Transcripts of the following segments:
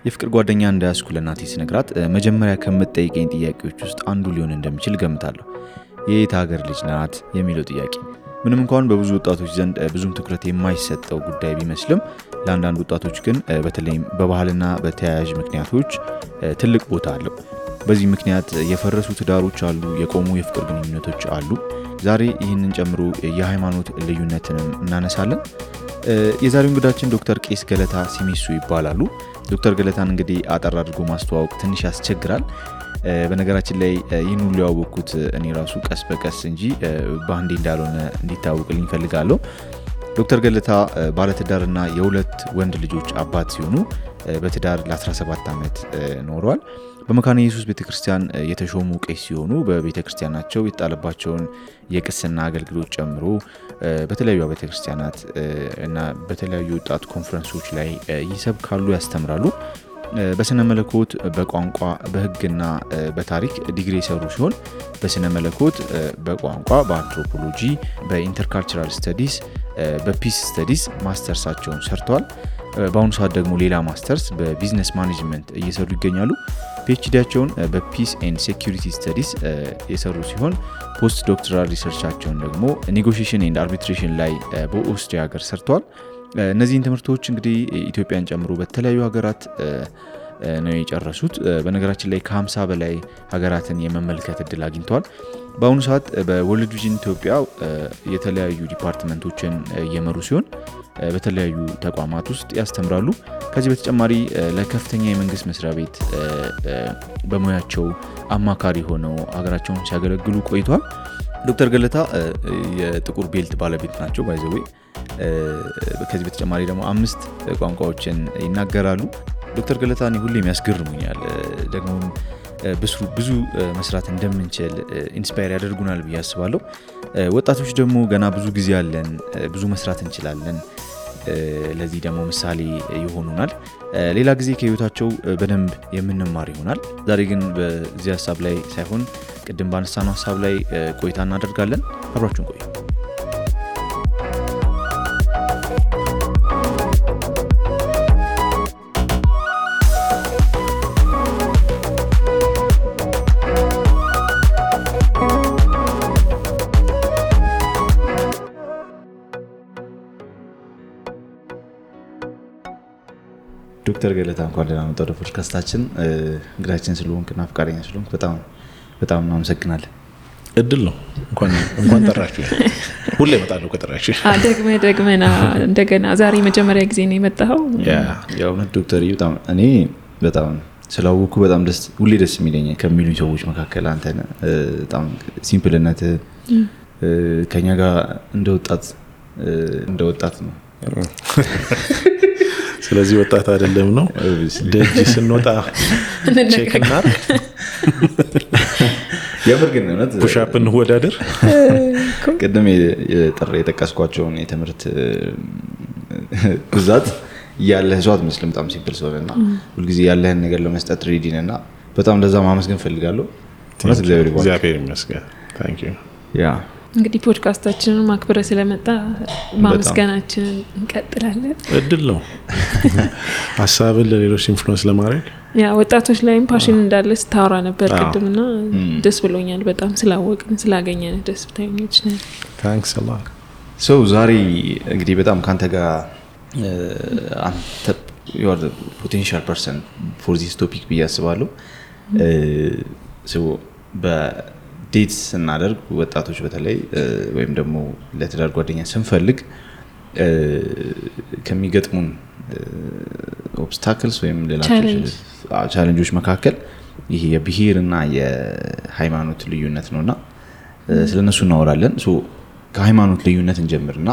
የፍቅር ጓደኛ እንዳያስኩ ለናቴ ስነግራት መጀመሪያ ከምትጠይቀኝ ጥያቄዎች ውስጥ አንዱ ሊሆን እንደሚችል ገምታለሁ። የየት ሀገር ልጅ ናት የሚለው ጥያቄ ምንም እንኳን በብዙ ወጣቶች ዘንድ ብዙም ትኩረት የማይሰጠው ጉዳይ ቢመስልም ለአንዳንድ ወጣቶች ግን በተለይም በባህልና በተያያዥ ምክንያቶች ትልቅ ቦታ አለው። በዚህ ምክንያት የፈረሱ ትዳሮች አሉ፣ የቆሙ የፍቅር ግንኙነቶች አሉ። ዛሬ ይህንን ጨምሮ የሃይማኖት ልዩነትንም እናነሳለን። የዛሬው እንግዳችን ዶክተር ቄስ ገለታ ሲሚሱ ይባላሉ። ዶክተር ገለታን እንግዲህ አጠር አድርጎ ማስተዋወቅ ትንሽ ያስቸግራል። በነገራችን ላይ ይህን ሁሉ ያወቅኩት እኔ ራሱ ቀስ በቀስ እንጂ በአንዴ እንዳልሆነ እንዲታወቅልኝ ፈልጋለሁ። ዶክተር ገለታ ባለትዳርና የሁለት ወንድ ልጆች አባት ሲሆኑ በትዳር ለ17 ዓመት ኖረዋል። በመካነ ኢየሱስ ቤተክርስቲያን የተሾሙ ቄስ ሲሆኑ በቤተክርስቲያናቸው የተጣለባቸውን የቅስና አገልግሎት ጨምሮ በተለያዩ ቤተክርስቲያናት እና በተለያዩ ወጣት ኮንፈረንሶች ላይ ይሰብካሉ፣ ያስተምራሉ። በስነ መለኮት፣ በቋንቋ፣ በሕግና በታሪክ ዲግሪ የሰሩ ሲሆን በስነ መለኮት፣ በቋንቋ፣ በአንትሮፖሎጂ፣ በኢንተርካልቸራል ስተዲስ፣ በፒስ ስተዲስ ማስተርሳቸውን ሰርተዋል። በአሁኑ ሰዓት ደግሞ ሌላ ማስተርስ በቢዝነስ ማኔጅመንት እየሰሩ ይገኛሉ። ፒኤችዲያቸውን በፒስ ኤንድ ሴኩሪቲ ስተዲስ የሰሩ ሲሆን ፖስት ዶክተራል ሪሰርቻቸውን ደግሞ ኔጎሺዬሽን ኤንድ አርቢትሬሽን ላይ በኦስትሪያ ሀገር ሰርተዋል። እነዚህን ትምህርቶች እንግዲህ ኢትዮጵያን ጨምሮ በተለያዩ ሀገራት ነው የጨረሱት። በነገራችን ላይ ከ50 በላይ ሀገራትን የመመልከት እድል አግኝተዋል። በአሁኑ ሰዓት በወርልድ ቪዥን ኢትዮጵያ የተለያዩ ዲፓርትመንቶችን እየመሩ ሲሆን በተለያዩ ተቋማት ውስጥ ያስተምራሉ። ከዚህ በተጨማሪ ለከፍተኛ የመንግስት መስሪያ ቤት በሙያቸው አማካሪ ሆነው ሀገራቸውን ሲያገለግሉ ቆይተዋል። ዶክተር ገለታ የጥቁር ቤልት ባለቤት ናቸው ባይዘዌ። ከዚህ በተጨማሪ ደግሞ 5 ቋንቋዎችን ይናገራሉ። ዶክተር ገለታ እኔ ሁሌም ያስገርሙኛል። ደግሞ ብዙ መስራት እንደምንችል ኢንስፓየር ያደርጉናል ብዬ አስባለሁ። ወጣቶች ደግሞ ገና ብዙ ጊዜ አለን፣ ብዙ መስራት እንችላለን። ለዚህ ደግሞ ምሳሌ ይሆኑናል። ሌላ ጊዜ ከህይወታቸው በደንብ የምንማር ይሆናል። ዛሬ ግን በዚህ ሀሳብ ላይ ሳይሆን ቅድም ባነሳነው ሀሳብ ላይ ቆይታ እናደርጋለን። አብራችሁን ቆዩ። ዶክተር ገለታ እንኳን ደህና መጣህ ወደ ፖድካስታችን። እንግዳችን ስለሆንክና ፍቃደኛ ስለሆንክ በጣም እናመሰግናለን። እድል ነው። እንኳን ጠራችሁ። ሁሌ እመጣለሁ ከጠራችሁ። ደግመና እንደገና ዛሬ መጀመሪያ ጊዜ ነው የመጣኸው። ያው ዶክተር እኔ በጣም ስላወኩ በጣም ሁሌ ደስ የሚለኝ ከሚሉኝ ሰዎች መካከል አንተ ነህ። በጣም ሲምፕልነት ከኛ ጋር እንደወጣት ነው። ስለዚህ ወጣት አይደለም ነው ደጅ ስንወጣ ቼክ እናድርግ። የምርግን ነው ፑሽ አፕ እንወዳደር። ቅድም የጠቀስኳቸውን የትምህርት ብዛት ያለህ ሰው አትመስልም። በጣም ሲምፕል ሰውና ሁልጊዜ ያለህን ነገር ለመስጠት ሬዲ ነህና በጣም ለዛ ማመስገን ፈልጋለሁ። እግዚአብሔር ይመስገን። ታንክ ዩ። እንግዲህ ፖድካስታችንን ማክበረ ስለመጣ ማመስገናችንን እንቀጥላለን። እድል ነው ሐሳብን ለሌሎች ኢንፍሉዌንስ ለማድረግ። ወጣቶች ላይም ፓሽን እንዳለ ስታወራ ነበር ቅድምና ደስ ብሎኛል በጣም ስላወቅን ስላገኘን ደስተኞች ነን። ታንክስ አ ሎት። ዛሬ እንግዲህ በጣም ካንተ ጋር አንተ you are the potential person for this topic ብዬ አስባለሁ። በዴትስ ስናደርግ ወጣቶች በተለይ ወይም ደግሞ ለትዳር ጓደኛ ስንፈልግ ከሚገጥሙን ኦብስታክልስ ወይም ሌላ ቻሌንጆች መካከል ይሄ የብሄርና የሃይማኖት ልዩነት ነውና ስለነሱ እናወራለን። ከሃይማኖት ልዩነት እንጀምርና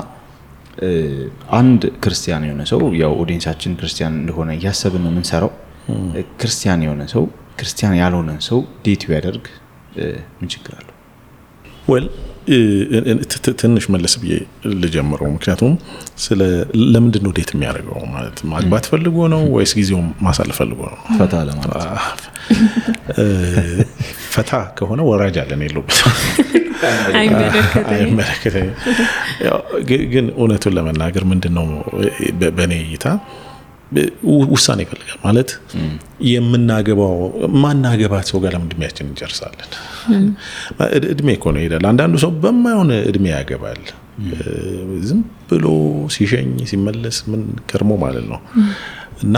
አንድ ክርስቲያን የሆነ ሰው ያው ኦዲየንሳችን ክርስቲያን እንደሆነ ያሰብን ነው የምንሰራው። ክርስቲያን የሆነ ሰው ክርስቲያን ያልሆነ ሰው ዴት ቢያደርግ ምን ችግር አለው? ትንሽ መለስ ብዬ ልጀምረው። ምክንያቱም ለምንድን ነው ዴት የሚያደርገው? ማለት ማግባት ፈልጎ ነው ወይስ ጊዜውን ማሳለፍ ፈልጎ ነው? ፈታ ለማለት ፈታ ከሆነ ወራጅ አለን የለውበት። አይመለከተኝም። ግን እውነቱን ለመናገር ምንድነው በእኔ እይታ ውሳኔ ይፈልጋል ማለት የምናገባው ማናገባት ሰው ጋር ለምን እድሜያችን እንጨርሳለን? እድሜ እኮ ነው ይላል። አንዳንዱ ሰው በማይሆን እድሜ ያገባል ዝም ብሎ ሲሸኝ ሲመለስ ምን ከርሞ ማለት ነው። እና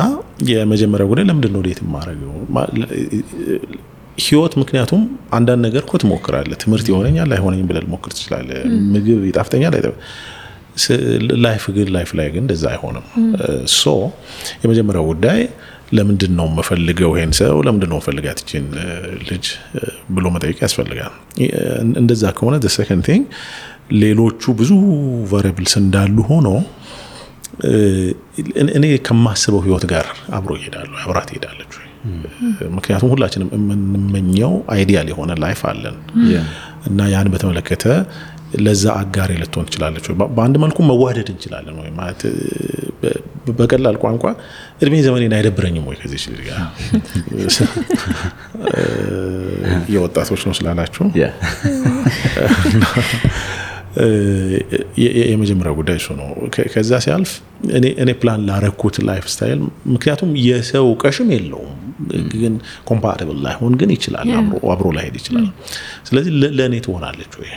የመጀመሪያው ጉዳይ ለምንድን ነው ዴት ማረገው ህይወት? ምክንያቱም አንዳንድ ነገር እኮ ትሞክራለህ። ትምህርት ይሆነኛል አይሆነኝም ብለህ ልሞክር ትችላለህ። ምግብ ይጣፍጠኛል ላይፍ ላይ ግን እንደዛ አይሆንም። ሶ የመጀመሪያው ጉዳይ ለምንድን ነው የምፈልገው ይሄን ሰው ለምንድን ነው የምፈልጋት እቺን ልጅ ብሎ መጠየቅ ያስፈልጋል። እንደዛ ከሆነ the second thing ሌሎቹ ብዙ ቫሪያብልስ እንዳሉ ሆኖ እኔ ከማስበው ህይወት ጋር አብሮ ይሄዳሉ አብራት ይሄዳለች። ምክንያቱም ሁላችንም የምንመኘው አይዲያል የሆነ ላይፍ አለን እና ያን በተመለከተ ለዛ አጋር ልትሆን ትችላለች። በአንድ መልኩ መዋደድ እንችላለን ወይ ማለት በቀላል ቋንቋ እድሜ ዘመኔን አይደብረኝም ወይ ከዚህ ልጅ ጋር የወጣቶች ነው ስላላችሁ የመጀመሪያው ጉዳይ እሱ ነው። ከዛ ሲያልፍ እኔ ፕላን ላረኩት ላይፍ ስታይል ምክንያቱም የሰው ቀሽም የለውም ግን ኮምፓቲብል ላይሆን ግን ይችላል አብሮ ላይሄድ ይችላል። ስለዚህ ለኔ ትሆናለች ወይ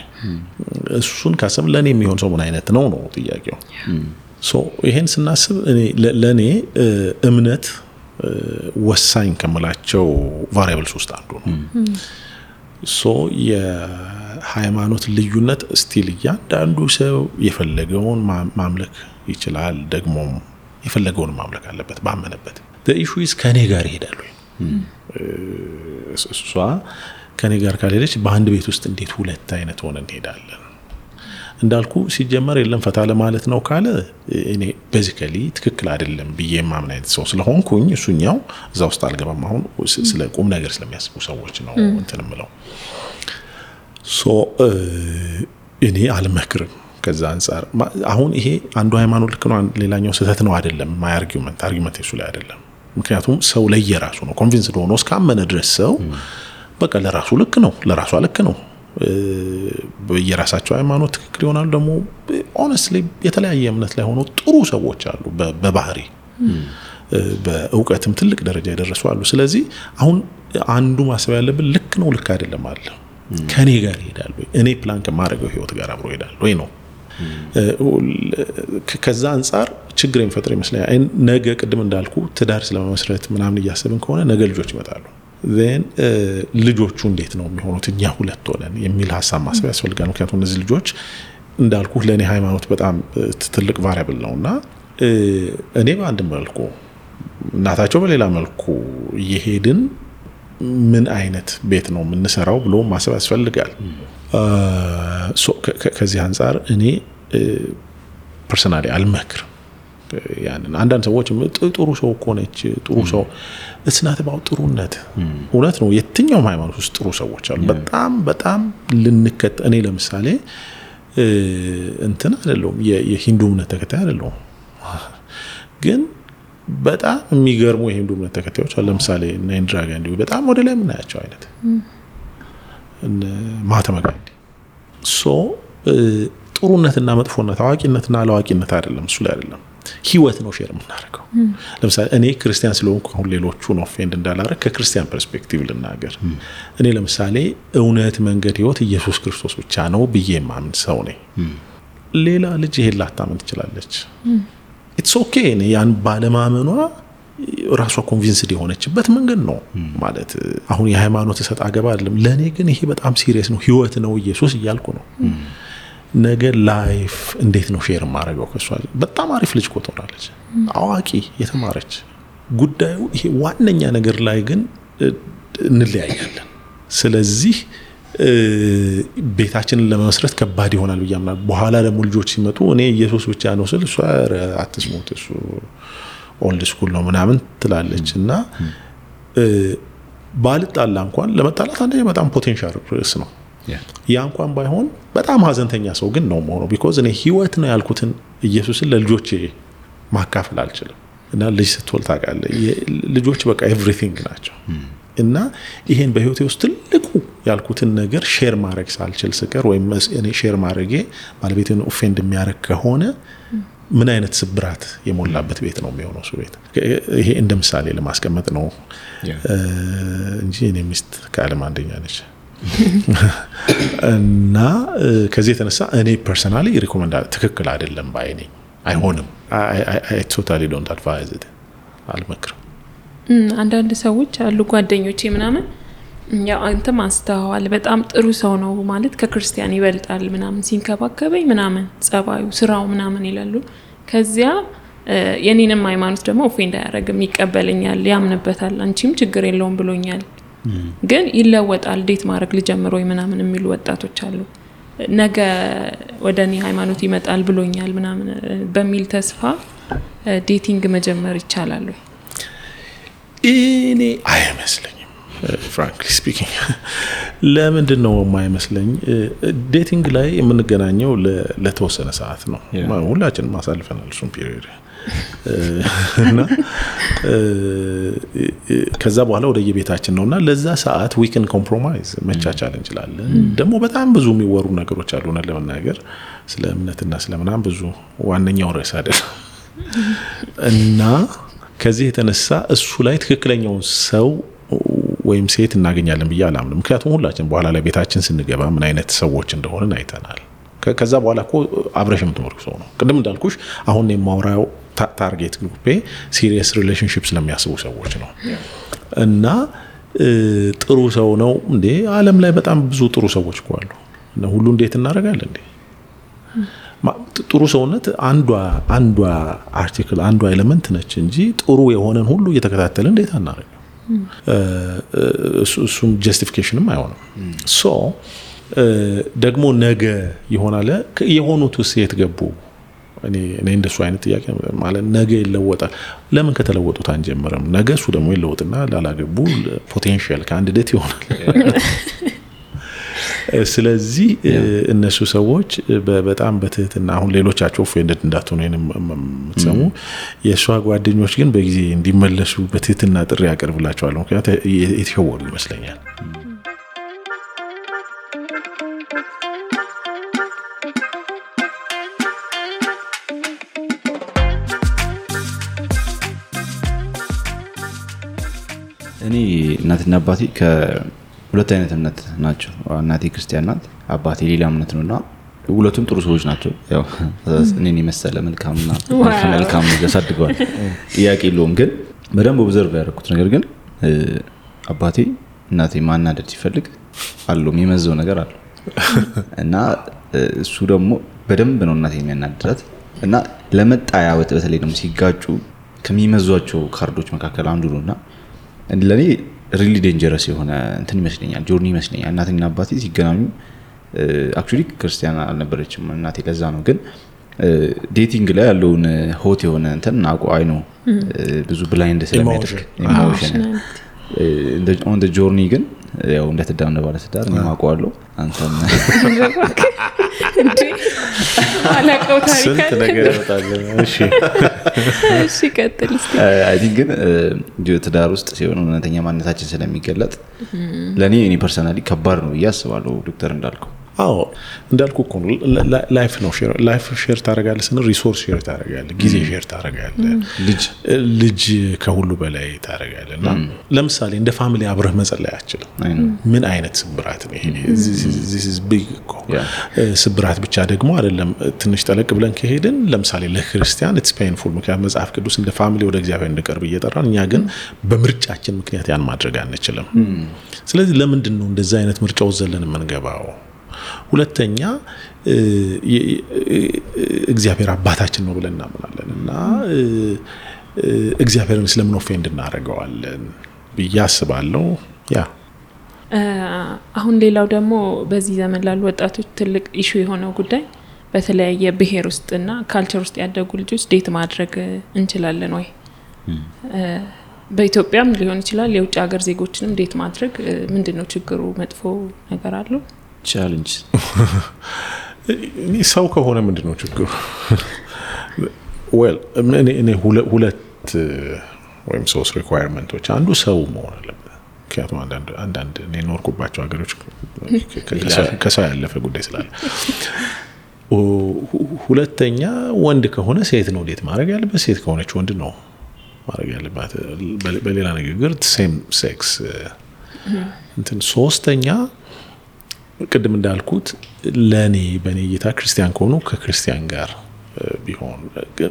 እሱን ካሰብ ለኔ የሚሆን ሰው ምን አይነት ነው ጥያቄው። ሶ ይሄን ስናስብ ለኔ እምነት ወሳኝ ከመላቸው ቫሪያብልስ ውስጥ አንዱ ነው። ሶ የሃይማኖት ልዩነት ስቲል እያንዳንዱ ሰው የፈለገውን ማምለክ ይችላል ደግሞ የፈለገውን ማምለክ አለበት ባመነበት። the issue is ከኔ ጋር ይሄዳል ወይ እሷ ከኔ ጋር ካልሄደች በአንድ ቤት ውስጥ እንዴት ሁለት አይነት ሆነ እንሄዳለን? እንዳልኩ ሲጀመር የለም ፈታ ለማለት ነው ካለ እኔ ቤዚካሊ ትክክል አይደለም ብዬ ማምን አይነት ሰው ስለሆንኩኝ እሱኛው እዛ ውስጥ አልገባም። አሁን ስለ ቁም ነገር ስለሚያስቡ ሰዎች ነው እንትንምለው። ሶ እኔ አልመክርም ከዛ አንፃር። አሁን ይሄ አንዱ ሃይማኖት ልክ ነው ሌላኛው ስህተት ነው አይደለም። ማይ አርጊውመንት እሱ ላይ አይደለም። ምክንያቱም ሰው ለየራሱ ነው ኮንቪንስድ ሆኖ እስካመነ ድረስ ሰው በቃ ለራሱ ልክ ነው ለራሷ ልክ ነው። በየራሳቸው ሃይማኖት ትክክል ይሆናሉ። ደግሞ ሆነስትሊ የተለያየ እምነት ላይ ሆኖ ጥሩ ሰዎች አሉ በባህሪ በእውቀትም ትልቅ ደረጃ ያደረሱ አሉ። ስለዚህ አሁን አንዱ ማሰብ ያለብን ልክ ነው ልክ አይደለም አለ ከኔ ጋር ይሄዳል ወይ እኔ ፕላን ከማድረገው ህይወት ጋር አብሮ ይሄዳል ወይ ነው። ከዛ አንፃር ችግር የሚፈጥር ይመስለኛል። ነገ ቅድም እንዳልኩ ትዳር ስለመመስረት ምናምን እያሰብን ከሆነ ነገ ልጆች ይመጣሉ። then ልጆቹ እንዴት ነው የሚሆኑት እኛ ሁለት ሆነን የሚል ሐሳብ ማሰብ ያስፈልጋል። ምክንያቱም እነዚህ ልጆች እንዳልኩ ለኔ ሃይማኖት በጣም ትልቅ ቫሪያብል ነውና እኔ በአንድ መልኩ እናታቸው በሌላ መልኩ እየሄድን ምን አይነት ቤት ነው የምንሰራው ብሎ ማሰብ ያስፈልጋል። ከዚህ አንፃር እኔ ፐርሰናሊ አልመክርም። ያንን አንዳንድ ሰዎች ጥሩ ሰው ኮነች ጥሩ ሰው እስናት ባው ጥሩነት እውነት ነው። የትኛውም ሃይማኖት ውስጥ ጥሩ ሰዎች አሉ በጣም ልንከተ እኔ ለምሳሌ እንትን አይደለም የሂንዱ እምነት ተከታይ አይደለም ግን በጣም የሚገርሙ የሂንዱ እምነት ተከታዮች አሉ። ለምሳሌ ኢንዲራ ጋንዲ በጣም ወደ ላይ ምናያቸው አይነት ማህተማ ጋንዲ ሶ ጥሩነትና መጥፎነት አዋቂነትና አላዋቂነት አይደለም እሱ ላይ አይደለም ህይወት ነው ሼር የምናደርገው። ለምሳሌ እኔ ክርስቲያን ስለሆንኩ አሁን ሌሎቹን ኦፌንድ እንዳላረግ ከክርስቲያን ፐርስፔክቲቭ ልናገር። እኔ ለምሳሌ እውነት መንገድ ህይወት ኢየሱስ ክርስቶስ ብቻ ነው ብዬ ማምን ሰው ነኝ። ሌላ ልጅ ይሄን ላታምን ትችላለች። ኢትስ ኦኬ ያን ባለማመኗ ራሷ ኮንቪንስድ የሆነችበት መንገድ ነው ማለት አሁን የሃይማኖት ሰጣ ገባ አይደለም። ለኔ ግን ይሄ በጣም ሲሪየስ ነው ህይወት ነው ኢየሱስ እያልኩ ነው። ነገ ላይፍ እንዴት ነው ሼር ማድረገው ከሷ በጣም አሪፍ ልጅ ቆጥራለች አዋቂ የተማረች ጉዳዩ ይሄ ዋነኛ ነገር ላይ ግን እንለያያለን። ስለዚህ ቤታችንን ለመመስረት ከባድ ይሆናል ብያምናል። በኋላ ደግሞ ልጆች ሲመጡ እኔ ኢየሱስ ብቻ ነው ስል እሷ አትስሙት እሱ ኦልድ ስኩል ነው ምናምን ትላለችና ባልጣላ እንኳን ለመጣላት አንዴ በጣም ፖቴንሻል ሪስክ ነው። ያ እንኳን ባይሆን በጣም ሀዘንተኛ ሰው ግን ነው ማለት ቢኮዝ እኔ ህይወት ነው ያልኩትን ኢየሱስን ለልጆቼ ማካፈል አልችልም። እና ልጅ ስትወልድ ታውቃለህ ልጆች በቃ ኤቭሪቲንግ ናቸው እና ይሄን በህይወቴ ውስጥ ትልቁ ያልኩትን ነገር ሼር ማድረግ ሳልችል ስቀር ወይም እኔ ሼር ማድረጌ ባለቤቴን ኦፌንድ የሚያደርግ ከሆነ ምን አይነት ስብራት የሞላበት ቤት ነው የሚሆነው እሱ ቤት። ይሄ እንደ ምሳሌ ለማስቀመጥ ነው እንጂ እኔ ሚስት ከዓለም አንደኛ ነች። እና ከዚህ የተነሳ እኔ ፐርሰናሊ ሪኮመንድ ትክክል አይደለም ባይ ነኝ። አይሆንም። I totally don't advise it። አልመክርም። አንዳንድ ሰዎች አሉ ጓደኞቼ ምናምን ያው አንተ ማስተዋል በጣም ጥሩ ሰው ነው ማለት ከክርስቲያን ይበልጣል ምናምን ሲንከባከበኝ ምናምን ጸባዩ ስራው ምናምን ይላሉ። ከዚያ የኔንም ሃይማኖት ደግሞ ኦፌንድ አያረግም ይቀበለኛል ያምንበታል አንቺም ችግር የለውም ብሎኛል ግን ይለወጣል ዴት ማድረግ ልጀምር ወይ ምናምን የሚሉ ወጣቶች አሉ። ነገ ወደኔ ሃይማኖት ይመጣል ብሎኛል ምናምን በሚል ተስፋ ዴቲንግ መጀመር ይቻላል ወይ? እኔ አይመስለኝም frankly speaking። ለምንድን ነው የማይመስለኝ? ዴቲንግ ላይ የምንገናኘው ለተወሰነ ሰዓት ነው። ሁላችንም ማሳልፈናል እሱን ፒሪየድ እና ከዛ በኋላ ወደ የቤታችን ነውና ለዛ ሰዓት we can compromise መቻቻል እንችላለን። ደግሞ በጣም ብዙ የሚወሩ ነገሮች አሉ ለመናገር ስለ እምነትና ስለምናም ብዙ ዋነኛው ርዕስ አይደለም። እና ከዚህ የተነሳ እሱ ላይ ትክክለኛውን ሰው ወይም ሴት እናገኛለን ብዬ አላምንም። ምክንያቱም ሁላችን በኋላ ላይ ቤታችን ስንገባ ምን አይነት ሰዎች እንደሆነን አይተናል። ከዛ በኋላ እኮ አብረሽ የምትኖር ሰው ነው። ቅድም እንዳልኩሽ አሁን የማውራው ታርጌት ግሩፔ ሲሪየስ ሪሌሽንሺፕስ ለሚያስቡ ሰዎች ነው። እና ጥሩ ሰው ነው እንዴ? ዓለም ላይ በጣም ብዙ ጥሩ ሰዎች እኮ አሉ። እና ሁሉ እንዴት እናደርጋለን እንዴ? ጥሩ ሰውነት አንዷ አርቲክል አንዷ ኤሌመንት ነች እንጂ ጥሩ የሆነን ሁሉ እየተከታተልን እንዴት አናደርግ? እሱም ጀስቲፊኬሽንም አይሆንም። ሶ ደግሞ ነገ ይሆናል የሆኑት ሴት ገቡ እኔ እንደሱ አይነት ጥያቄ ማለት ነገ ይለወጣል። ለምን ከተለወጡት አንጀምርም? ነገ እሱ ደግሞ ይለወጥና ላላገቡ ፖቴንሻል ካንዲዴት ይሆናል። ስለዚህ እነሱ ሰዎች በጣም በትህትና አሁን ሌሎቻቸው ኦፌንድድ እንዳትሆኑ የምትሰሙ የሷ ጓደኞች ግን በጊዜ እንዲመለሱ በትህትና ጥሪ ያቀርብላቸዋል። ምክንያቱም የተሸወሩ ይመስለኛል። እኔ እናትና አባቴ ሁለት አይነት እምነት ናቸው። እናቴ ክርስቲያን ናት፣ አባቴ ሌላ እምነት ነውና ሁለቱም ጥሩ ሰዎች ናቸው። ያው እኔን የመሰለ መልካምና መልካም ያሳድገዋል ጥያቄ የለውም። ግን በደንብ ኦብዘርቭ ያደረኩት ነገር ግን አባቴ እናቴ ማናደድ ሲፈልግ አለው የሚመዘው ነገር አለ እና እሱ ደግሞ በደንብ ነው እናቴ የሚያናድራት እና ለመጣያ በተለይ ደግሞ ሲጋጩ ከሚመዟቸው ካርዶች መካከል አንዱ ነውና ለኔ ሪሊ ዴንጀረስ የሆነ እንትን ይመስለኛል ጆርኒ ይመስለኛል። እናቴና አባቴ ሲገናኙ አክቹሊ ክርስቲያን አልነበረችም እናቴ ለዛ ነው። ግን ዴቲንግ ላይ ያለውን ሆት የሆነ እንትን አይ ነው ብዙ ብላይንድ ስለሚያደርግ ኢሞሽን ኦን ዘ ጆርኒ ግን ያው እንደተዳነ ባለ ትዳር ነው ማቋለው አንተም እንዴ አላቀው ታሪክ ስንት ነገር ይወጣል። እሺ ቀጥል እስቲ። አይ ቲንክ ግን ትዳር ውስጥ ሲሆን እውነተኛ ማንነታችን ስለሚገለጥ ለኔ ፐርሰናሊ ከባድ ነው ያስባለሁ። ዶክተር እንዳልከው አዎ እንዳልኩ እኮ ላይፍ ነው ላይፍ ሼር ታደርጋለህ ስንል ሪሶርስ ሼር ታደርጋለህ፣ ጊዜ ሼር ታደርጋለህ፣ ልጅ ከሁሉ በላይ ታደርጋለህና ለምሳሌ እንደ ፋሚሊ አብረህ መጸለይ አትችልም። ምን አይነት ስብራት ነው ይሄ? this is big እኮ ስብራት ብቻ ደግሞ አይደለም። ትንሽ ጠለቅ ብለን ከሄድን ለምሳሌ ለክርስቲያን it's painful ምክንያቱም መጽሐፍ ቅዱስ እንደ ፋሚሊ ወደ እግዚአብሔር እንድቀርብ እየጠራን እኛ ግን በምርጫችን ምክንያት ያን ማድረግ አንችልም። ስለዚህ ለምንድን ነው እንደዛ አይነት ምርጫው ዘለን የምንገባው? ሁለተኛ እግዚአብሔር አባታችን ነው ብለን እናምናለን እና እግዚአብሔርን ስለምን ኦፌንድ እናደርገዋለን ብዬ አስባለሁ። ያ አሁን ሌላው ደግሞ በዚህ ዘመን ላሉ ወጣቶች ትልቅ ኢሹ የሆነው ጉዳይ በተለያየ ብሔር ውስጥና ካልቸር ውስጥ ያደጉ ልጆች ዴት ማድረግ እንችላለን ወይ? በኢትዮጵያም ሊሆን ይችላል የውጭ ሀገር ዜጎችንም ዴት ማድረግ ምንድነው ችግሩ? መጥፎ ነገር አለው? ቻሌንጅ እኔ ሰው ከሆነ ምንድነው ችግሩ? ዌል እኔ ሁለት ወይም ሶስት ሪኳየርመንቶች አንዱ ሰው መሆን አለበት። ምክንያቱም አንዳንድ እኔ ኖርኩባቸው ሀገሮች ከሰው ያለፈ ጉዳይ ስላለ። ሁለተኛ ወንድ ከሆነ ሴት ነው ዴት ማድረግ ያለበት፣ ሴት ከሆነች ወንድ ነው ማድረግ ያለባት። በሌላ ንግግር ሴም ሴክስ እንትን። ሶስተኛ ቅድም እንዳልኩት ለኔ በኔ እይታ ክርስቲያን ከሆኑ ከክርስቲያን ጋር ቢሆን።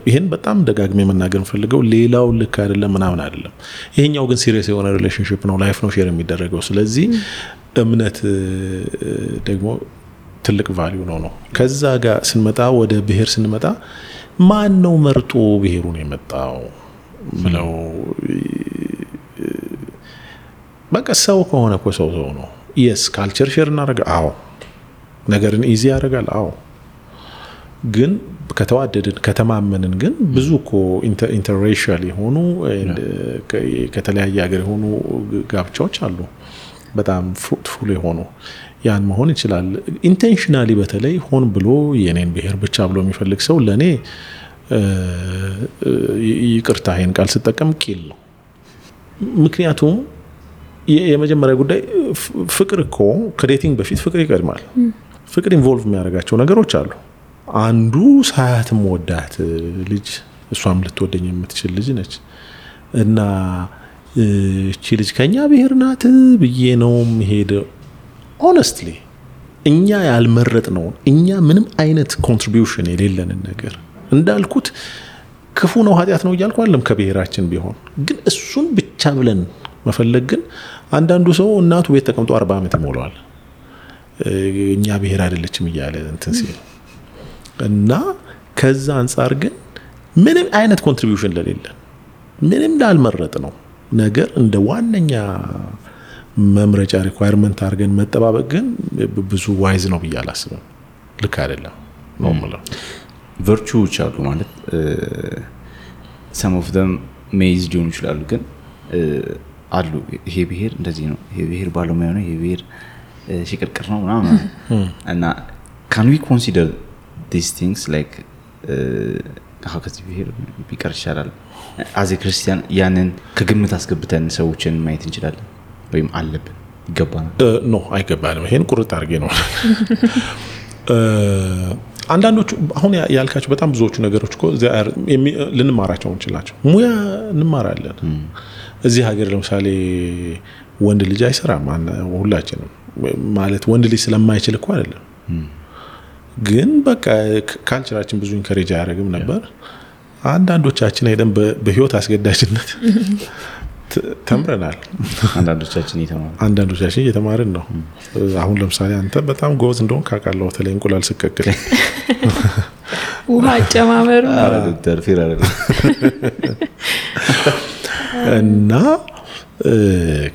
ይሄን በጣም ደጋግሜ መናገር ፈልገው ሌላው ልክ አይደለም ምናምን አይደለም። ይሄኛው ግን ሲሪየስ የሆነ ሪሌሽንሺፕ ነው፣ ላይፍ ነው ሼር የሚደረገው። ስለዚህ እምነት ደግሞ ትልቅ ቫልዩ ነው። ከዛ ጋር ስንመጣ ወደ ብሔር ስንመጣ ማን ነው መርጦ ብሔሩን የመጣው ብለው በቃ ሰው ከሆነ እኮ ሰው ነው። የስ ካልቸር ሼር እናደርጋ፣ አዎ ነገርን ኢዚ ያደርጋል፣ አዎ ግን ከተዋደድን ከተማመንን ግን ብዙ እኮ ኢንተርሬሻል የሆኑ ከተለያየ ሀገር የሆኑ ጋብቻዎች አሉ፣ በጣም ፍሩትፉል የሆኑ። ያን መሆን ይችላል። ኢንቴንሽናሊ በተለይ ሆን ብሎ የኔን ብሔር ብቻ ብሎ የሚፈልግ ሰው ለኔ ይቅርታ ይሄን ቃል ስጠቀም ቂል ነው። ምክንያቱም የመጀመሪያ ጉዳይ ፍቅር እኮ ከዴቲንግ በፊት ፍቅር ይቀድማል። ፍቅር ኢንቮልቭ የሚያደርጋቸው ነገሮች አሉ። አንዱ ሳያትም ወዳት ልጅ እሷም ልትወደኝ የምትችል ልጅ ነች እና እቺ ልጅ ከኛ ብሔር ናት ብዬ ነው የምሄደው። ሆነስትሊ እኛ ያልመረጥ ነው፣ እኛ ምንም አይነት ኮንትሪቢዩሽን የሌለንን ነገር እንዳልኩት ክፉ ነው ኃጢአት ነው እያልኩ አይደለም። ከብሔራችን ቢሆን ግን እሱን ብቻ ብለን መፈለግ ግን አንዳንዱ ሰው እናቱ ቤት ተቀምጦ 40 ዓመት ይሞላዋል እኛ ብሔር አይደለችም እያለ እንትን ሲል እና ከዛ አንፃር ግን ምንም አይነት ኮንትሪቢዩሽን ለሌለን ምንም ላልመረጥ ነው ነገር እንደ ዋነኛ መምረጫ ሪኳየርመንት አድርገን መጠባበቅ ግን ብዙ ዋይዝ ነው ብዬ አላስብም። ልክ አይደለም ነው ማለት ቨርቹዎች አሉ ማለት some of them ሜይዝ ሊሆኑ ይችላሉ ግን አሉ። ይሄ ብሔር እንደዚህ ነው፣ ይሄ ብሔር ባለሙያ ነው፣ ይሄ ብሔር ሽቅርቅር ነው ምናምን እና can we consider these things like how ከዚህ ብሔር ቢቀር ይሻላል as a Christian ያንን ከግምት አስገብተን ሰዎችን ማየት እንችላለን ወይም አለብን ይገባናል? ኖ አይገባንም። ይሄን ቁርጥ አድርጌ ነው አንዳንዶቹ አሁን ያልካቸው በጣም ብዙዎቹ ነገሮች እኮ ልንማራቸው እንችላቸው። ሙያ እንማራለን። እዚህ ሀገር ለምሳሌ ወንድ ልጅ አይሰራም ሁላችንም ማለት ወንድ ልጅ ስለማይችል እኮ አይደለም ግን በቃ ካልቸራችን ብዙ ኢንከሬጅ አያደርግም ነበር። አንዳንዶቻችን ሄደን በህይወት አስገዳጅነት ተምረናል። አንዳንዶቻችን እየተማርን ነው። አሁን ለምሳሌ አንተ በጣም ጎበዝ እንደሆን ካውቃለሁ። በተለይ እንቁላል ስቀቅል ውሃ አጨማመሩ ዶክተር ፊራረ እና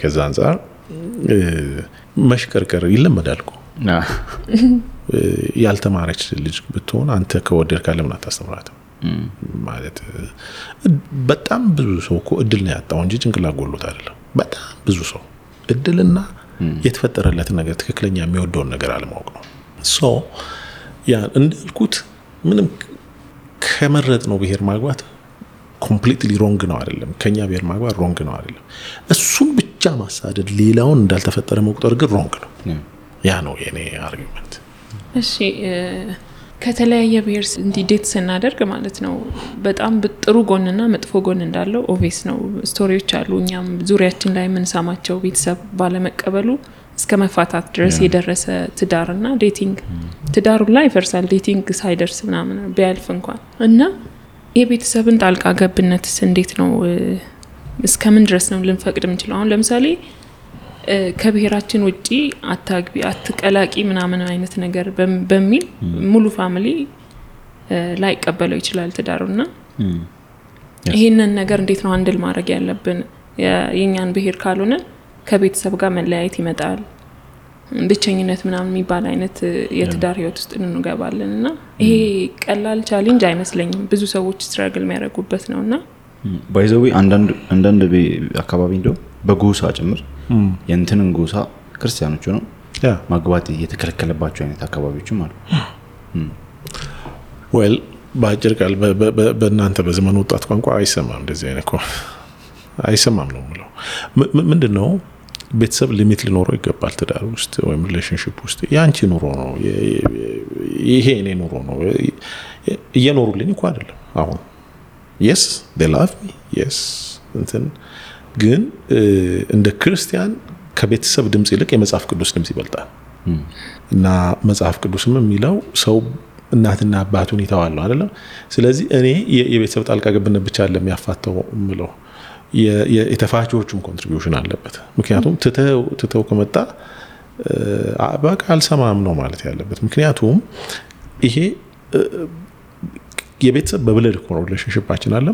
ከዛ አንፃር መሽከርከር ይለመዳል እኮ። ያልተማረች ልጅ ብትሆን አንተ ከወደድክ ለምን አታስተምራትም? ማለት በጣም ብዙ ሰው እኮ እድል ነው ያጣው እንጂ ጭንቅላት ጎሎት አይደለም። በጣም ብዙ ሰው እድልና የተፈጠረለትን ነገር ትክክለኛ የሚወደውን ነገር አለማወቅ ነው። ሶ ያ እንዳልኩት ምንም ከመረጥ ነው ብሔር ማግባት ኮምፕሊትሊ ሮንግ ነው አይደለም። ከኛ ብሔር ማግባት ሮንግ ነው አይደለም። እሱን ብቻ ማሳደድ ሌላውን እንዳልተፈጠረ መቁጠር ግን ሮንግ ነው። ያ ነው የኔ አርጊመንት። እሺ ከተለያየ ብሔር እንዲዴት ስናደርግ ማለት ነው በጣም ጥሩ ጎንና መጥፎ ጎን እንዳለው ኦቪየስ ነው። ስቶሪዎች አሉ እኛም ዙሪያችን ላይ የምንሰማቸው ቤተሰብ ባለመቀበሉ እስከ መፋታት ድረስ የደረሰ ትዳርና ዴቲንግ ትዳሩ ላይ ይፈርሳል ዴቲንግ ሳይደርስ ምናምን ቢያልፍ እንኳን እና የቤተሰብን ጣልቃ ገብነትስ እንዴት ነው እስከምን ድረስ ነው ልንፈቅድ የምንችለው? አሁን ለምሳሌ ከብሔራችን ውጪ አታግቢ አትቀላቂ ምናምን አይነት ነገር በሚል ሙሉ ፋሚሊ ላይ ቀበለው ይችላል ትዳሩና ይሄንን ነገር እንዴት ነው አንድል ማድረግ ያለብን? የኛን ብሔር ካልሆነ ከቤተሰብ ጋር መለያየት ይመጣል፣ ብቸኝነት ምናምን የሚባል አይነት የትዳር ህይወት ውስጥ እንገባለንና ይሄ ቀላል ቻሌንጅ አይመስለኝም። ብዙ ሰዎች ስትራግል የሚያደርጉበት ነውና ባይዘው አንዳንድ አካባቢ እንደው በጎሳ ጭምር የእንትንን ጎሳ ክርስቲያኖች ነው ማግባት የተከለከለባቸው አይነት አካባቢዎችም አሉ። ዌል ባጭር ቃል በእናንተ በዘመኑ ወጣት ቋንቋ አይሰማም እንደዚህ አይነት እኮ አይሰማም ነው የምለው። ምንድነው ቤተሰብ ሊሚት ሊኖረው ይገባል። ትዳር ውስጥ ወይም ሪሌሽንሺፕ ውስጥ ያንቺ ኑሮ ነው ይሄ እኔ ኑሮ ነው እየኖሩልኝ እኮ አይደለም አሁን yes they love me yes እንትን ግን እንደ ክርስቲያን ከቤተሰብ ድምጽ ይልቅ የመጽሐፍ ቅዱስ ድምጽ ይበልጣል እና መጽሐፍ ቅዱስም የሚለው ሰው እናትና አባቱን ይተዋል ነው አይደል? ስለዚህ እኔ የቤተሰብ ጣልቃ ገብነት ብቻ አይደለም ያፋተው ምለው የተፋቾቹም ኮንትሪቢዩሽን አለበት። ምክንያቱም ትተው ከመጣ በቃ አልሰማም ነው ማለት ያለበት። ምክንያቱም ይሄ የቤተሰብ በብለድ ሪሌሽንሺፓችን አለ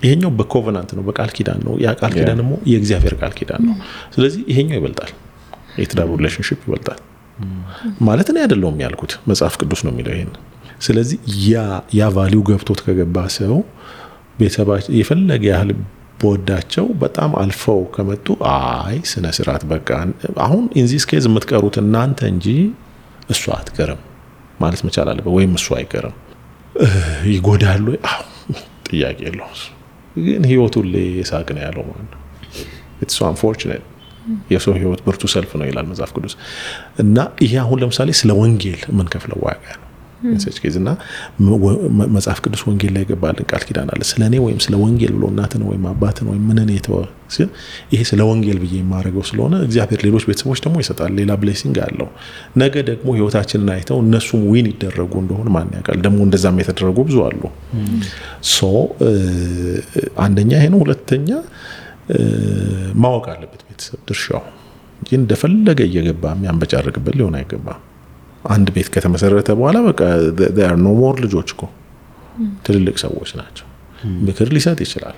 ይሄኛው በኮቨናንት ነው በቃል ኪዳን ነው ያ ቃል ኪዳን ደግሞ የእግዚአብሔር ቃል ኪዳን ነው። ስለዚህ ይሄኛው ይበልጣል የትዳር ሪሌሽንሺፕ ይበልጣል ማለት ነው አይደለም ያልኩት መጽሐፍ ቅዱስ ነው የሚለው ይሄን። ስለዚህ ያ ቫልዩ ገብቶት ከገባ ሰው ቤተሰባቸው የፈለገ ያህል ቦዳቸው በጣም አልፈው ከመጡ አይ ስነ ስርዓት በቃ አሁን ኢንዚስ ኬዝ የምትቀሩት እናንተ እንጂ እሱ አትቀርም ማለት መቻል አለበት ወይም እሱ አይቀርም ይጎዳሉ ጥያቄ የለውም። ግን ህይወቱ ለሳቅ ነው ያለው ማለት ነው። it's so unfortunate የሰው ህይወት ብርቱ ሰልፍ ነው ይላል መጽሐፍ ቅዱስ እና ይሄ አሁን ለምሳሌ ስለ ወንጌል ምን ከፍለው ዋጋ ነው እንሰጭ ከዚህና መጽሐፍ ቅዱስ ወንጌል ላይ ገባልን ቃል ኪዳን አለ ስለኔ ወይም ስለ ወንጌል ብሎ እናትን ወይም አባትን ወይም ምንን የተወ ይሄ ስለ ወንጌል ብዬ የማረገው ስለሆነ እግዚአብሔር ሌሎች ቤተሰቦች ደግሞ ይሰጣል ሌላ ብሌሲንግ አለው። ነገ ደግሞ ህይወታችንን አይተው እነሱም ዊን ይደረጉ እንደሆነ ማን ያውቃል? ደግሞ እንደዛም የተደረጉ ብዙ አሉ። ሶ አንደኛ ይሄ ነው። ሁለተኛ ማወቅ አለበት ቤተሰብ ድርሻው እንጂ እንደፈለገ እየገባ የሚያንበጫርቅበት ሊሆን አይገባም። አንድ ቤት ከተመሰረተ በኋላ በቃ there are no more ልጆች እኮ ትልልቅ ሰዎች ናቸው። ምክር ሊሰጥ ይችላል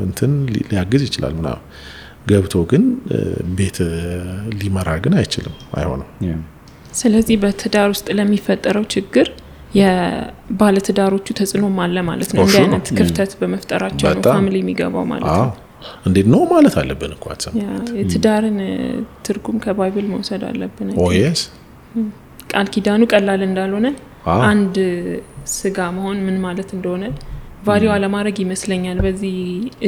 እንትን ሊያግዝ ይችላል ምናምን ገብቶ ግን ቤት ሊመራ ግን አይችልም አይሆንም። ስለዚህ በትዳር ውስጥ ለሚፈጠረው ችግር የባለትዳሮቹ ተጽዕኖም አለ ማለት ነው። እንደ አይነት ክፍተት በመፍጠራቸው ነው ፋሚሊ የሚገባው ማለት ነው። እንዴት ነው ማለት አለብን እኮ አትሰማ የትዳርን ትርጉም ከባይብል መውሰድ አለብን። yes ቃል ኪዳኑ ቀላል እንዳልሆነ አንድ ስጋ መሆን ምን ማለት እንደሆነ ቫልዩ አለማድረግ ይመስለኛል። በዚህ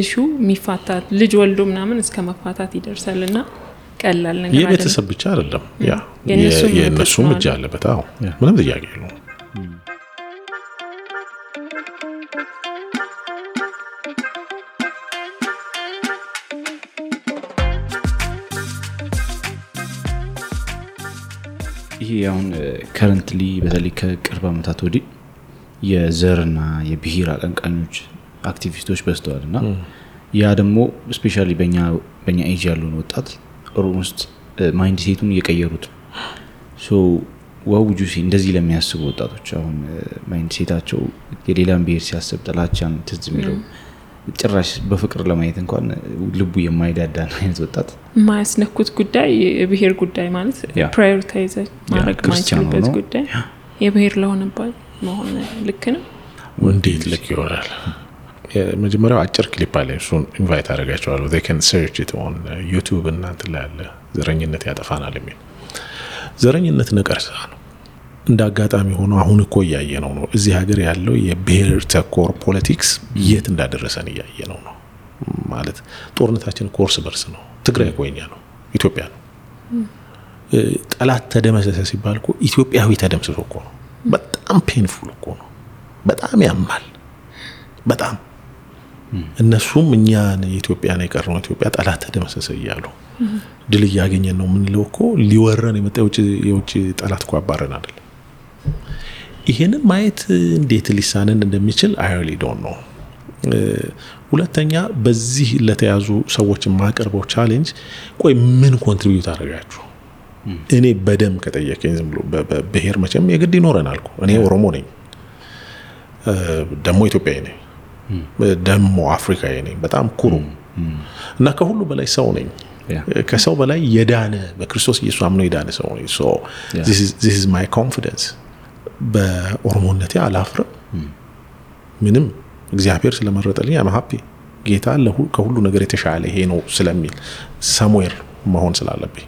ኢሹ የሚፋታት ልጅ ወልዶ ምናምን እስከ መፋታት ይደርሳልና ቀላል ነገር አይደለም። የቤተሰብ ብቻ አይደለም ያ የነሱም እጅ አለበት። አዎ ምንም ጥያቄ የለውም። ይሄ አሁን ከረንትሊ በተለይ ከቅርብ ዓመታት ወዲህ የዘርና የብሔር አቀንቃኞች አክቲቪስቶች በዝተዋልና ያ ደግሞ ስፔሻሊ በእኛ ኤጅ ያሉን ወጣት ኦልሞስት ማይንድ ሴቱን እየቀየሩት ሶ ዋውጁ እንደዚህ ለሚያስቡ ወጣቶች አሁን ማይንድ ሴታቸው የሌላን ብሔር ሲያስብ ጥላቻን ትዝ የሚለው ጭራሽ በፍቅር ለማየት እንኳን ልቡ የማይዳዳ አይነት ወጣት ማያስነኩት ጉዳይ የብሔር ጉዳይ ማለት ፕራዮሪታይዝ ማድረግ ማይችልበት ጉዳይ የብሔር ለሆነባል መሆን ልክ ነው። እንዴት ልክ ይሆናል? መጀመሪያው አጭር ክሊፕ አለ እሱን ኢንቫይት አደረጋቸዋለሁ they can search it on YouTube እና እንትን ላይ አለ ዘረኝነት ያጠፋናል የሚል ዘረኝነት ነቀርሳ ነው። እንደ አጋጣሚ ሆኖ አሁን እኮ ያየነው ነው እዚህ ሀገር ያለው የብሔር ተኮር ፖለቲክስ የት እንዳደረሰን ያየነው ነው ማለት ጦርነታችን ኮርስ በርስ ነው። ትግራይ ቆይኛ ነው ኢትዮጵያ ነው። ጠላት ተደመሰሰ ሲባል እኮ ኢትዮጵያዊ ተደምስሶ እኮ ነው። በጣም ፔንፉል እኮ ነው። በጣም ያማል በጣም እነሱም እኛን ኢትዮጵያን የቀረው ኢትዮጵያ ጠላት ተደመሰሰ ይያሉ ድል ያገኘን ነው ምን ለውኮ ሊወረን የመጣው የውጭ ጠላት እኮ አባረን አይደል? ይሄንን ማየት እንዴት ሊሳነን እንደሚችል I really don't know። ሁለተኛ በዚህ ለተያዙ ሰዎች ማቀርበው ቻሌንጅ ቆይ ምን ኮንትሪቢዩት አደረጋችሁ? እኔ በደም ከጠየቀኝ ዝም ብሎ በብሔር መቼም የግድ ይኖረናል እኮ እኔ ኦሮሞ ነኝ ደሞ ኢትዮጵያዊ ነኝ ደሞ አፍሪካዊ ነኝ በጣም ኩሩ እና ከሁሉ በላይ ሰው ነኝ ከሰው በላይ የዳነ በክርስቶስ ኢየሱስ አምኖ የዳነ ሰው ነኝ። so this is my confidence በኦሮሞነቴ አላፍርም ምንም እግዚአብሔር ስለመረጠልኝ I'm happy ጌታ ከሁሉ ነገር የተሻለ ይሄ ነው ስለሚል somewhere መሆን ስላለብኝ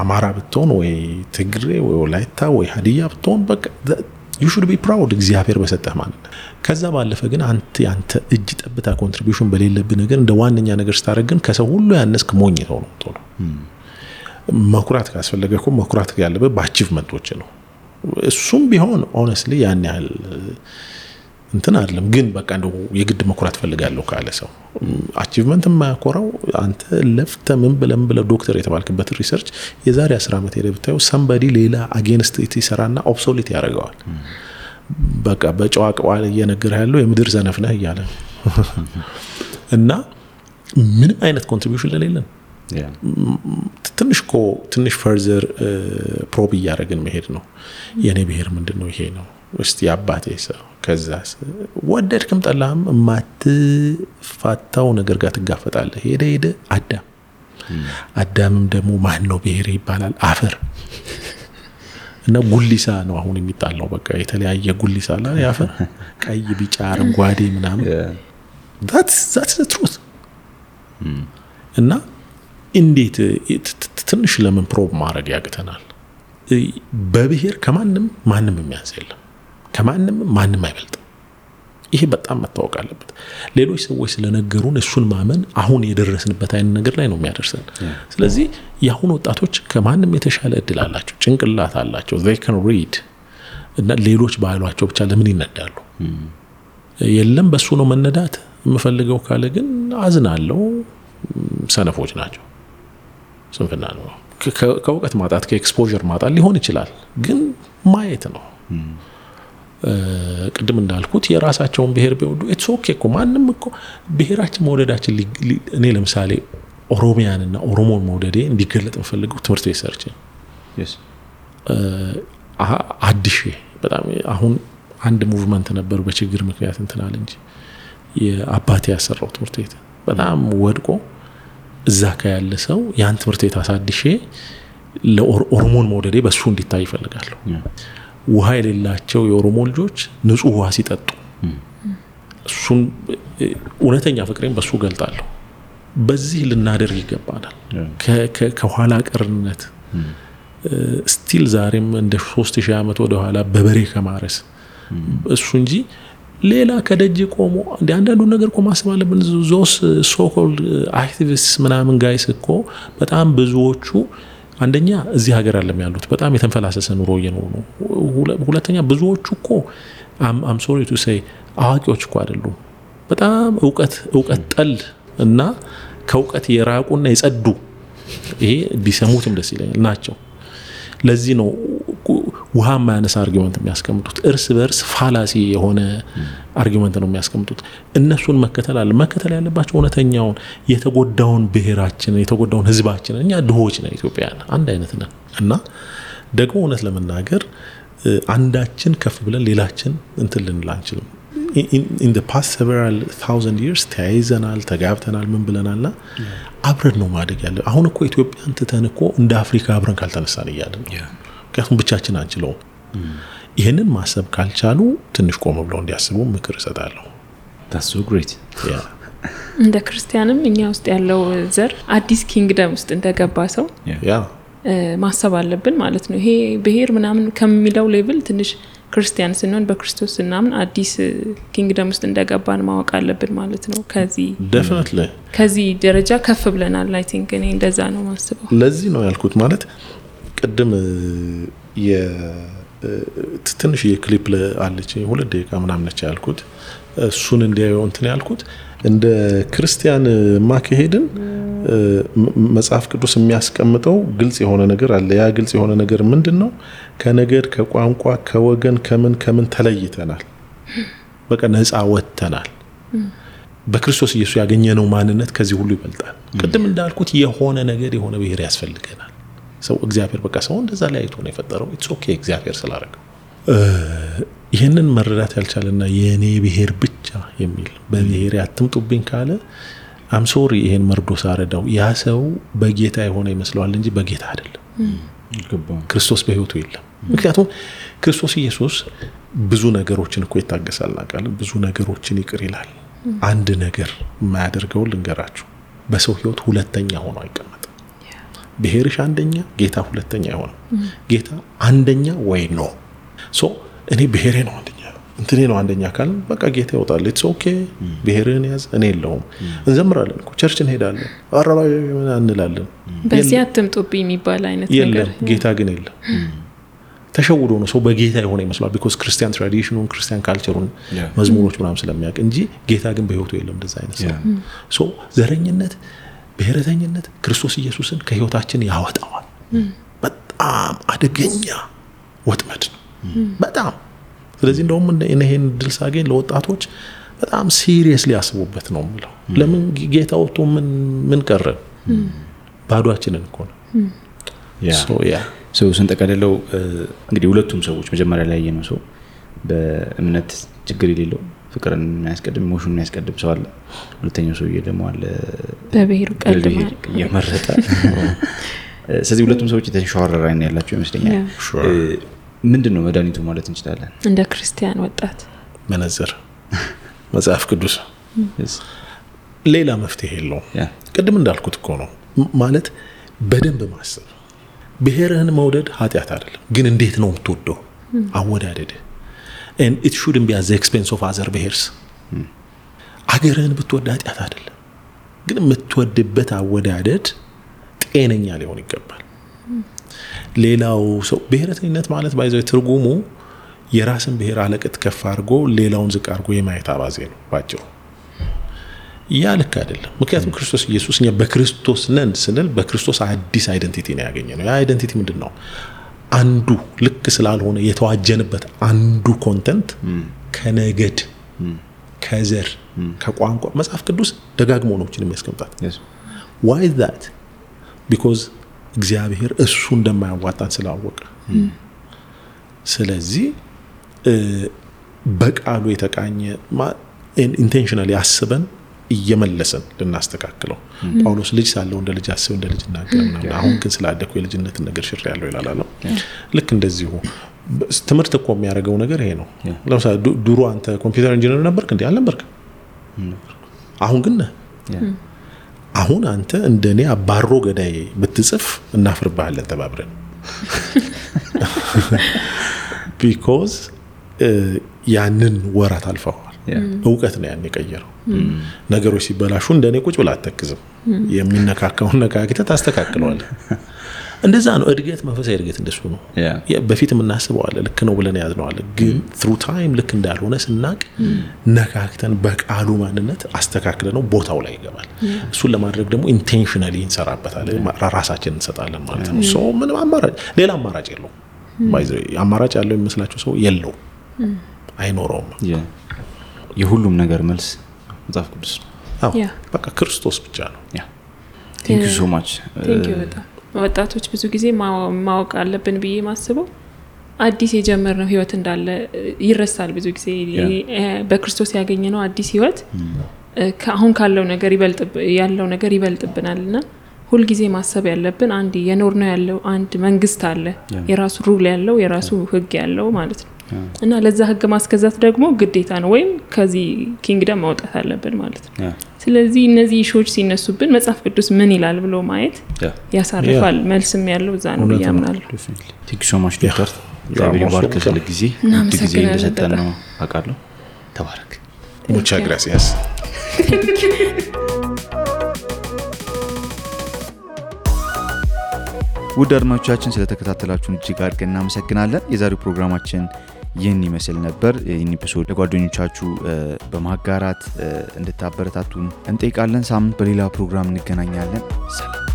አማራ ብትሆን ወይ ትግሬ ወይ ወላይታ ወይ ሀዲያ ብትሆን በቃ you should be proud እግዚአብሔር በሰጠህ ማለት ነው። ከዛ ባለፈ ግን አንተ እጅ ጠብታ ኮንትሪቢዩሽን በሌለብህ ነገር እንደ ዋነኛ ነገር ስታረግ ግን ከሰው ሁሉ ያነስክ ሞኝ ነው። መኩራት ካስፈለገ እኮ መኩራት ያለበት በአቺቭመንቶች ነው። እሱም ቢሆን ኦነስትሊ ያን ያህል እንትን አይደለም። ግን በቃ እንደው የግድ መኩራት ፈልጋለሁ ካለ ሰው አቺቭመንት የማያኮራው አንተ ለፍተ ምን ብለ ዶክተር የተባልክበት ሪሰርች የዛሬ 10 ዓመት ሄደ ብታየው somebody ሌላ against it ይሰራና ኦብሶሊት ያደርገዋል። በቃ በጨዋቀዋ እየነገረ ያለው የምድር ዘነፍ ነህ እያለ እና ምንም አይነት ኮንትሪቢዩሽን ለሌለን ትንሽ ፈርዘር ፕሮብ እያደረግን መሄድ ነው። የኔ ብሔር ምንድነው? ይሄ ነው እስቲ አባቴ ሰው ከዛስ ወደድክም ጠላህም የማትፋታው ነገር ጋር ትጋፈጣለህ። ሄደ አዳምም ደግሞ ማን ነው ብሔር ይባላል? አፈር እና ጉሊሳ ነው አሁን የሚጣላው። በቃ የተለያየ ጉሊሳ አለ ያፈር ቀይ፣ ቢጫ፣ አረንጓዴ ምናምን that's the truth። እና እንዴት ትንሽ ለምን ፕሮብ ማድረግ ያቅተናል? በብሔር ማንም የሚያንስ የለም፣ ማንም አይበልጥም። ይሄ በጣም መታወቅ አለበት። ሌሎች ሰዎች ስለነገሩን እሱን ማመን አሁን የደረስንበት አይነት ነገር ላይ ነው የሚያደርሰን። ስለዚህ የአሁን ወጣቶች ከማንም የተሻለ እድል አላቸው፣ ጭንቅላት አላቸው፣ they can read እና ሌሎች ባሏቸው ብቻ ለምን ይነዳሉ? የለም በሱ ነው መነዳት የምፈልገው ካለ ግን አዝናለሁ። ሰነፎች ናቸው። ስንፍና ነው። ከእውቀት ማጣት ከኤክስፖዠር ማጣት ሊሆን ይችላል፣ ግን ማየት ነው። ቅድም እንዳልኩት የራሳቸውን ብሔር ቢወዱ ኢትስ ኦኬ እኮ ማንም እኮ ብሔራችን መውደዳችን እኔ ለምሳሌ ኦሮሚያንና ኦሮሞን መውደዴ እንዲገለጥ የምፈልገው ትምህርት ቤት ሰርቼ አዲሽ በጣም አሁን አንድ ሙቭመንት ነበር በችግር ምክንያት እንትናል እንጂ የአባቴ ያሰራው ትምህርት ቤት በጣም ወድቆ እዛ ያለ ሰው ያን ትምህርት ቤት አሳድሼ ለኦሮሞን መውደዴ በሱ እንዲታይ ይፈልጋለሁ። ውሃ የሌላቸው የኦሮሞ ልጆች ንጹህ ውሃ ሲጠጡ እሱን እውነተኛ ፍቅሬን በሱ ገልጣለሁ። በዚህ ልናደርግ ይገባናል። ከኋላ ቀርነት ስቲል ዛሬም እንደ 3000 ዓመት ወደ ኋላ በበሬ ከማረስ እሱ እንጂ ሌላ ከደጅ ቆሞ አንዳንዱ ነገር እኮ ማሰብ አለብን። ዞስ ሶኮልድ አክቲቪስት ምናምን ጋይስ እኮ በጣም ብዙዎቹ አንደኛ እዚህ ሀገር አለም ያሉት በጣም የተንፈላሰሰ ኑሮ እየኖሩ ነው። ሁለተኛ ብዙዎቹ እኮ አም ሶሪ ቱ ሴይ አዋቂዎች እኮ አይደሉም። በጣም እውቀት ጠል እና ከእውቀት የራቁና የጸዱ ይሄ ቢሰሙትም ደስ ይለኛል ናቸው። ለዚህ ነው ውሃ ማያነሳ አርጊመንት የሚያስቀምጡት። እርስ በርስ ፋላሲ የሆነ አርጊመንት ነው የሚያስቀምጡት። እነሱን መከተል ያለባቸው እውነተኛውን የተጎዳውን ብሔራችን የተጎዳውን ህዝባችን። እኛ ድሆች ነን ኢትዮጵያውያን፣ አንድ አይነት ነን እና ደግሞ እውነት ለመናገር አንዳችን ከፍ ብለን ሌላችን እንትን ልንል አንችልም። in the past several thousand years ተያይዘናል፣ ተጋብተናል፣ ምን ብለናልና አብረን ነው ማደግ ያለ። አሁን እኮ ኢትዮጵያን ትተን እኮ እንደ አፍሪካ አብረን ካልተነሳን እያለን ምክንያቱም ብቻችን አንችለው። ይሄንን ማሰብ ካልቻሉ ትንሽ ቆም ብለው እንዲያስቡ ምክር እሰጣለሁ። that's so great እንደ ክርስቲያንም እኛ ውስጥ ያለው ዘር አዲስ ኪንግደም ውስጥ እንደገባ ሰው ማሰብ አለብን ማለት ነው። ይሄ ብሔር ምናምን ከሚለው ሌቭል ትንሽ ክርስቲያን ስንሆን በክርስቶስ እናምን አዲስ ኪንግደም ውስጥ እንደገባን ማወቅ አለብን ማለት ነው። ከዚህ ደረጃ ከፍ ብለናል። አይ ቲንክ እኔ እንደዛ ነው ማስበው። ለዚህ ነው ያልኩት ማለት ቅድም ትንሽ የክሊፕ አለች 2 ደቂቃ ምናምን ነች ያልኩት። እሱን እንዲያዩ እንትን ያልኩት እንደ ክርስቲያን ማከሄድን መጽሐፍ ቅዱስ የሚያስቀምጠው ግልጽ የሆነ ነገር አለ። ያ ግልጽ የሆነ ነገር ምንድነው? ከነገድ ከቋንቋ ከወገን ከምን ተለይተናል። በቃ ነፃ ወጥተናል። በክርስቶስ ኢየሱስ ያገኘነው ማንነት ከዚህ ሁሉ ይበልጣል። ቅድም እንዳልኩት የሆነ ነገር የሆነ ብሔር ያስፈልገናል። ሰው እግዚአብሔር በቃ ሰው እንደዛ ላይ አይቶ ነው የፈጠረው። ኢትስ ኦኬ እግዚአብሔር ስላደረገው። ይሄንን መረዳት ያልቻለና የኔ ብሔር ብቻ የሚል በብሔር ያትምጡብኝ ካለ አም ሶሪ ይሄን መርዶ ሳረዳው ያ ሰው በጌታ የሆነ ይመስለዋል እንጂ በጌታ አይደለም። ክርስቶስ በህይወቱ የለም። ምክንያቱም ክርስቶስ ኢየሱስ ብዙ ነገሮችን እኮ ይታገሳልና ቃል ብዙ ነገሮችን ይቅር ይላል። አንድ ነገር የማያደርገው ልንገራችሁ፣ በሰው ህይወት ሁለተኛ ሆኖ አይቀመጥም። ብሔርሽ አንደኛ፣ ጌታ ሁለተኛ ይሆናል። ጌታ አንደኛ ወይ ነው። ሶ እኔ ብሔሬ ነው አንደኛ እንትኔ ነው አንደኛ አካል በቃ ጌታ ይወጣል ኢትስ ኦኬ ብሔርህን ያዝ እኔ የለውም እንዘምራለን እኮ ቸርች እንሄዳለን አራባይ ምን እንላለን በዚህ አትምጡብኝ የሚባል አይነት ነገር ጌታ ግን የለም ተሸውዶ ነው ሰው በጌታ የሆነ ይመስላል because ክርስቲያን ትራዲሽኑን ክርስቲያን ካልቸሩን መዝሙሮች ምናምን ስለሚያውቅ እንጂ ጌታ ግን በህይወቱ የለም እንደዛ አይነት ሰው ዘረኝነት ብሔረተኝነት ክርስቶስ ኢየሱስን ከህይወታችን ያወጣዋል በጣም አደገኛ ወጥመድ ነው በጣም ስለዚህ እንደውም እነሄን ድል ሳገኝ ለወጣቶች በጣም ሲሪየስሊ ያስቡበት ነው ማለት ለምን ጌታው ቶ ምን ቀረ ባዶአችንን እኮ ነው ሰው ስንጠቀለለው እንግዲህ ሁለቱም ሰዎች መጀመሪያ ላይ ያየነው ሰው በእምነት ችግር የሌለው ፍቅርን የሚያስቀድም ኢሞሽኑን የሚያስቀድም ሰው አለ ሁለተኛው ሰው ደግሞ አለ በብሔሩ ቀድሞ የመረጠ ስለዚህ ሁለቱም ሰዎች የተሻወረረ አይን ያላቸው ይመስለኛል ምንድነው መድኃኒቱ ማለት እንችላለን እንደ ክርስቲያን ወጣት መነጽር መጽሐፍ ቅዱስ ሌላ መፍትሄ የለውም ቅድም እንዳልኩት እኮ ነው ማለት በደንብ ማሰብ ብሔርህን መውደድ ኃጢአት አይደለም ግን እንዴት ነው የምትወደው አወዳደድ and it shouldn't be at the expense of other bears አገርህን ብትወድ ኃጢአት አይደለም ግን የምትወድበት አወዳደድ ጤነኛ ሊሆን ይገባል ሌላው ሰው ብሔረተኝነት ማለት ባይዘው ትርጉሙ የራስን ብሔር አለቀት ከፍ አድርጎ ሌላውን ዝቅ አድርጎ የማየት አባዜ ነው ባጭሩ ያ ልክ አይደለም ምክንያቱም ክርስቶስ ኢየሱስ እኛ በክርስቶስ ነን ስንል በክርስቶስ አዲስ አይደንቲቲ ነው ያገኘነው ያ አይደንቲቲ ምንድነው አንዱ ልክ ስላልሆነ የተዋጀንበት አንዱ ኮንተንት ከነገድ ከዘር ከቋንቋ መጽሐፍ ቅዱስ ደጋግሞ ነው የሚያስቀምጣት why is that because እግዚአብሔር እሱ እንደማያዋጣን ስላወቀ ስለዚህ በቃሉ የተቃኘ ኢንቴንሽናሊ አስበን እየመለሰን ልናስተካክለው ጳውሎስ ልጅ ሳለው እንደ ልጅ አስብ እንደ ልጅ እናገርና አሁን ግን ስላደኩ የልጅነት ነገር ሽር ያለው ይላል ልክ እንደዚሁ ትምህርት እኮ የሚያደርገው ነገር ይሄ ነው ለምሳሌ ድሮ አንተ ኮምፒውተር ኢንጂነር ነበርክ እንዴ አልነበርክ አሁን ግን አሁን አንተ እንደኔ አባሮ ገዳይ ብትጽፍ እናፍርባለን ተባብረን because ያንን ወራት አልፈዋል እውቀት ነው ያን የቀየረው ነገሮች ሲበላሹ እንደኔ ቁጭ ብላ አትተክዝም የሚነካካውን ነካክተ ታስተካክለዋል እንደዛ ነው እድገት መንፈሳዊ እድገት እንደሱ ነው በፊት የምናስበው አለ ልክ ነው ብለን ያዝነው አለ ግን through time ልክ እንዳልሆነ ስናቅ ነካክተን በቃሉ ማንነት አስተካክለ ነው ቦታው ላይ ይገባል እሱን ለማድረግ ደግሞ ኢንቴንሽናሊ እንሰራበታለን ራሳችንን እንሰጣለን ማለት ነው ሶ ምንም አማራጭ ሌላ አማራጭ የለው ባይዘው አማራጭ ያለው የሚመስላችሁ ሰው የለው አይኖርም የሁሉም ነገር መልስ መጽሐፍ ቅዱስ ነው በቃ ክርስቶስ ብቻ ነው thank you so much thank you በጣም ወጣቶች ብዙ ጊዜ ማወቅ አለብን ብዬ ማስበው አዲስ የጀመርነው ህይወት እንዳለ ይረሳል ብዙ ጊዜ በክርስቶስ ያገኘነው አዲስ ህይወት አሁን ካለው ነገር ያለው ነገር ይበልጥብናልና ሁሉ ጊዜ ማሰብ ያለብን አንድ የኖርነው ያለው አንድ መንግስት አለ የራሱ ሩል ያለው የራሱ ህግ ያለው ማለት ነው እና ለዛ ህግ ማስከዛት ደግሞ ግዴታ ነው ወይም ከዚህ ኪንግደም ማውጣት አለብን ማለት ነው ስለዚህ እነዚህ ሾች ሲነሱብን መጽሐፍ ቅዱስ ምን ይላል ብሎ ማየት ያሳርፋል መልስም ያለው እዛ ነው ያምናል thank you so much ዶክተር እግዚአብሔር ይባርክ ስለጊዜ ጊዜ እንደሰጠን ነው አቃለሁ ተባረክ muchas gracias ውድ አድማጮቻችን ስለተከታተላችሁን እጅግ አድርገን እናመሰግናለን የዛሬው ፕሮግራማችን ይህን ይመስል ነበር ይህን ኤፒሶድ ለጓደኞቻችሁ በማጋራት እንድታበረታቱን እንጠይቃለን ሳምንት በሌላ ፕሮግራም እንገናኛለን ሰላም